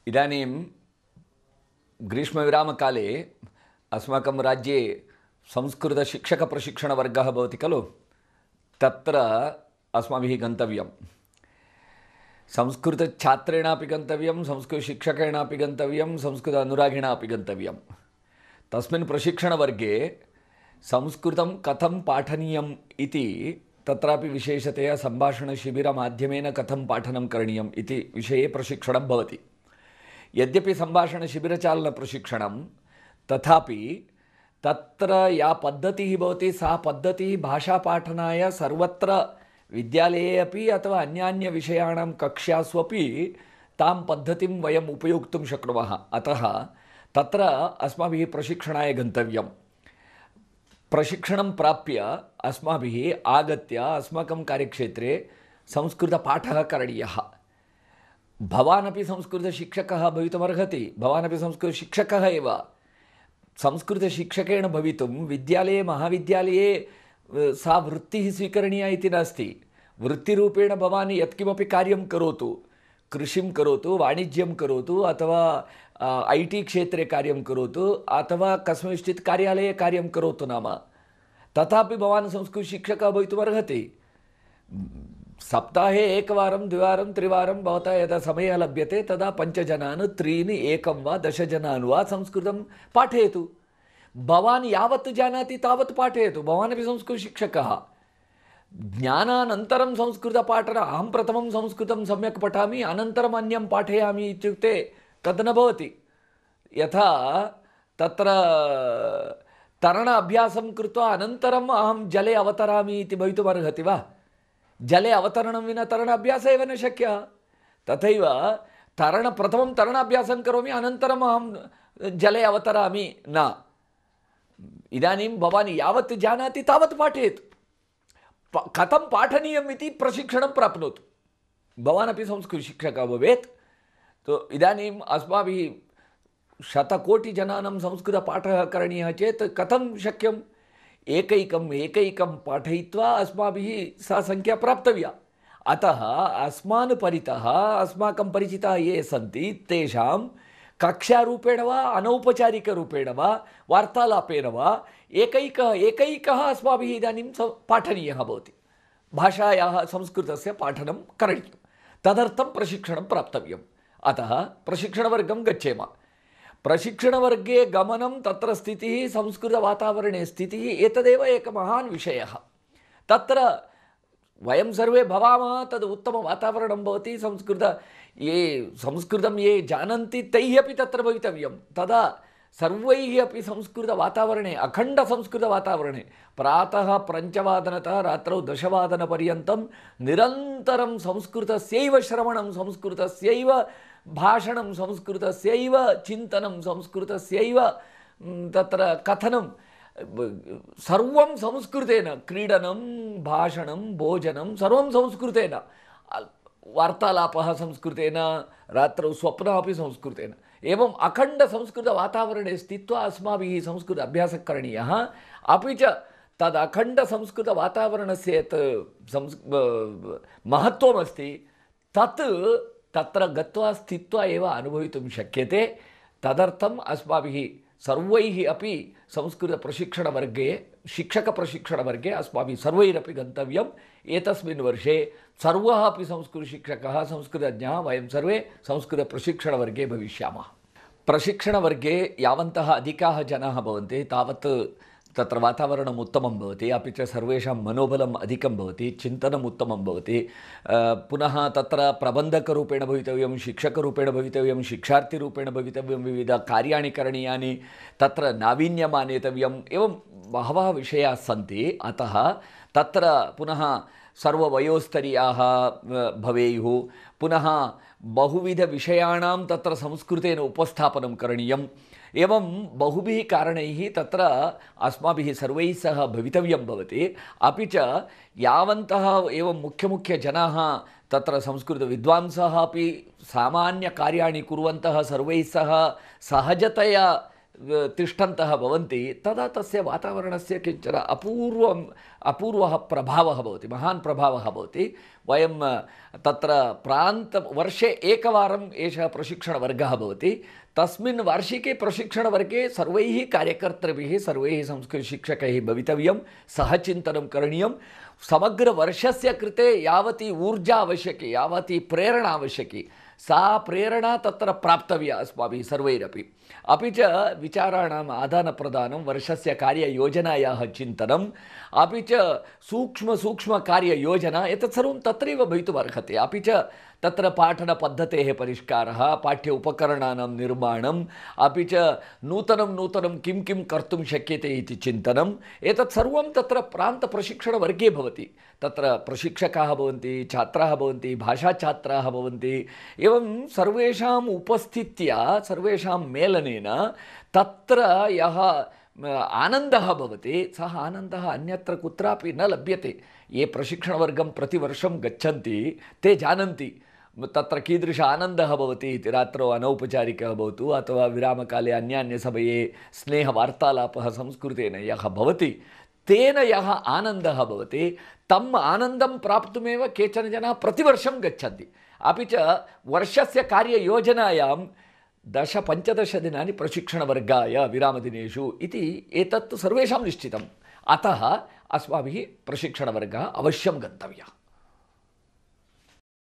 इदानीं ग्रीष्मविरामकाले अस्माकं राज्ये संस्कृतशिक्षकप्रशिक्षणवर्गः भवति खलु। तत्र अस्माभिः गन्तव्यं। संस्कृतछात्रेणापि गन्तव्यं, संस्कृतशिक्षकेणापि गन्तव्यं, संस्कृत अनुरागिणापि गन्तव्यं। तस्मिन् प्रशिक्षणवर्गे संस्कृतं कथं पाठनीयम् इति तत्रापि विशेषतया सम्भाषणशिबिरमाध्यमेन कथं पाठनं करणीयम् इति विषये प्रशिक्षणं भवति। यद्यपि सम्भाषणशिबिरचालनप्रशिक्षणं, तथापि तत्र या पद्धतिः भवति सा पद्धतिः भाषापाठनाय सर्वत्र विद्यालये अपि अथवा अन्यान्यविषयाणां कक्षास्वपि तां पद्धतिं वयम् उपयोक्तुं शक्नुमः। अतः तत्र अस्माभिः प्रशिक्षणाय गन्तव्यं। प्रशिक्षणं प्राप्य अस्माभिः आगत्य अस्माकं कार्यक्षेत्रे संस्कृतपाठः करणीयः। भवानपि संस्कृतशिक्षकः भवितुमर्हति, भवानपि संस्कृतशिक्षकः एव। संस्कृतशिक्षकेण भवितुं विद्यालये महाविद्यालये सा वृत्तिः स्वीकरणीया इति नास्ति। वृत्तिरूपेण भवान् यत्किमपि कार्यं करोतु, कृषिं करोतु, वाणिज्यं करोतु, अथवा IT क्षेत्रे कार्यं करोतु, अथवा कस्मिंश्चित् कार्यालये कार्यं करोतु नाम, तथापि भवान् संस्कृतशिक्षकः भवितुमर्हति। सप्ताहे एकवारं द्विवारं त्रिवारं भवता यदा समयः लभ्यते तदा 5 जनान् 3 1 वा 10 जनान् वा संस्कृतं पाठयतु। भवान् यावत् जानाति तावत् पाठयतु। भवानपि संस्कृतशिक्षकः। ज्ञानानन्तरं संस्कृतपाठनं, अहं प्रथमं संस्कृतं सम्यक् पठामि अनन्तरम् अन्यं पाठयामि इत्युक्ते तद् न भवति। यथा तत्र तरण अभ्यासं कृत्वा अनन्तरम् अहं जले अवतरामि इति भवितुमर्हति वा? जले अवतरणं विना तरणाभ्यासः एव न शक्यः। तथैव प्रथमं तरणाभ्यासं करोमि अनन्तरम् अहं जले अवतरामि न। इदानीं भवान् यावत् जानाति तावत् पाठयतु। कथं पाठनीयम् इति प्रशिक्षणं प्राप्नोतु। भवानपि संस्कृतशिक्षकः भवेत्। तो इदानीम् अस्माभिः शतकोटिजनानां संस्कृतपाठः करणीयः चेत् कथं शक्यम्? एकैकं पाठयित्वा अस्माभिः सा संख्या प्राप्तव्या। अतः अस्मान् परितः अस्माकं परिचिताः ये सन्ति तेषां कक्षारूपेण वा अनौपचारिकरूपेण वा वार्तालापेन वा एकैकः अस्माभिः इदानीं पाठनीयः भवति। भाषायाः संस्कृतस्य पाठनं करणीयं। तदर्थं प्रशिक्षणं प्राप्तव्यम्। अतः प्रशिक्षणवर्गं गच्छेम। प्रशिक्षणवर्गे गमनं, तत्र स्थितिः, संस्कृतवातावरणे स्थितिः, एतदेव एकः महान् विषयः। तत्र वयं सर्वे भवामः, तद् उत्तमवातावरणं भवति। संस्कृतं ये जानन्ति तैः अपि तत्र भवितव्यं। तदा सर्वैः अपि संस्कृतवातावरणे, अखण्डसंस्कृतवातावरणे प्रातः 5 रात्रौ 10 निरन्तरं संस्कृतस्यैव श्रवणं, संस्कृतस्यैव भाषणं, संस्कृतस्यैव चिन्तनं, संस्कृतस्यैव तत्र कथनं, सर्वं संस्कृतेन। क्रीडनं, भाषणं, भोजनं सर्वं संस्कृतेन। वार्तालापः संस्कृतेन, रात्रौ स्वप्नः अपि संस्कृतेन। एवम् अखण्डसंस्कृतवातावरणे स्थित्वा अस्माभिः संस्कृत अभ्यासः करणीयः। अपि च तद् अखण्डसंस्कृतवातावरणस्य यत् महत्त्वमस्ति तत् तत्र गत्वा स्थित्वा एव अनुभवितुं शक्यते। तदर्थम् अस्माभिः सर्वैः अपि संस्कृतप्रशिक्षणवर्गे, शिक्षकप्रशिक्षणवर्गे अस्माभिः सर्वैरपि गन्तव्यम्। एतस्मिन् वर्षे सर्वः अपि संस्कृतशिक्षकः, संस्कृतज्ञाः वयं सर्वे संस्कृतप्रशिक्षणवर्गे भविष्यामः। प्रशिक्षणवर्गे यावन्तः अधिकाः जनाः भवन्ति तावत् तत्र वातावरणम् उत्तमं भवति। अपि च सर्वेषां मनोबलम् अधिकं भवति, चिन्तनम् उत्तमं भवति। पुनः तत्र प्रबन्धकरूपेण भवितव्यं, शिक्षकरूपेण भवितव्यं, शिक्षार्थिरूपेण भवितव्यं, विविधकार्याणि करणीयानि, तत्र नावीन्यम् आनेतव्यम्, एवं बहवः विषयाः सन्ति। अतः तत्र पुनः सर्ववयोस्तरीयाः भवेयुः। पुनः बहुविधविषयाणां तत्र संस्कृतेन उपस्थापनं करणीयम्। एवं बहुभिः कारणैः तत्र अस्माभिः सर्वैः सह भवितव्यं भवति। अपि च यावन्तः एवं मुख्यजनाः तत्र संस्कृतविद्वांसः अपि सामान्यकार्याणि कुर्वन्तः सर्वैः सह सहजतया तिष्ठन्तः भवन्ति तदा तस्य वातावरणस्य किञ्चन अपूर्वः प्रभावः भवति, महान् प्रभावः भवति। वयं तत्र वर्षे एकवारम् एषः प्रशिक्षणवर्गः भवति। तस्मिन् वार्षिके प्रशिक्षणवर्गे सर्वैः कार्यकर्तृभिः सर्वैः संस्कृतशिक्षकैः भवितव्यं, सह चिन्तनं करणीयं। समग्रवर्षस्य कृते यावती ऊर्जा आवश्यकी, यावती प्रेरणा आवश्यकी, सा प्रेरणा तत्र प्राप्तव्या अस्माभिः सर्वैरपि। अपि च विचाराणाम् आदानप्रदानं, वर्षस्य कार्ययोजनायाः चिन्तनम्, अपि च सूक्ष्मकार्ययोजना, एतत् सर्वं तत्रैव भवितुमर्हति। अपि च तत्र पाठनपद्धतेः परिष्कारः, पाठ्य उपकरणानां निर्माणम्, अपि च नूतनं किं किं कर्तुं शक्यते इति चिन्तनम्, एतत् सर्वं तत्र प्रान्तप्रशिक्षणवर्गे भवति। तत्र प्रशिक्षकाः भवन्ति, छात्राः भवन्ति, भाषाछात्राः भवन्ति। एवं सर्वेषाम् उपस्थित्या, सर्वेषां मेलनेन तत्र यः आनन्दः भवति, सः आनन्दः अन्यत्र कुत्रापि न लभ्यते। ये प्रशिक्षणवर्गं प्रतिवर्षं गच्छन्ति ते जानन्ति तत्र कीदृश आनन्दः भवति इति। रात्रौ अनौपचारिकः भवतु अथवा विरामकाले अन्यान्यसमये स्नेहवार्तालापः संस्कृतेन यः भवति, तेन यः आनन्दः भवति, तम् आनन्दं प्राप्तुमेव केचन जनाः प्रतिवर्षं गच्छन्ति। अपि च वर्षस्य कार्ययोजनायां 10-15 दिनानि प्रशिक्षणवर्गाय विरामदिनेषु इति एतत् सर्वेषां निश्चितम्। अतः अस्माभिः प्रशिक्षणवर्गः अवश्यं गन्तव्यः।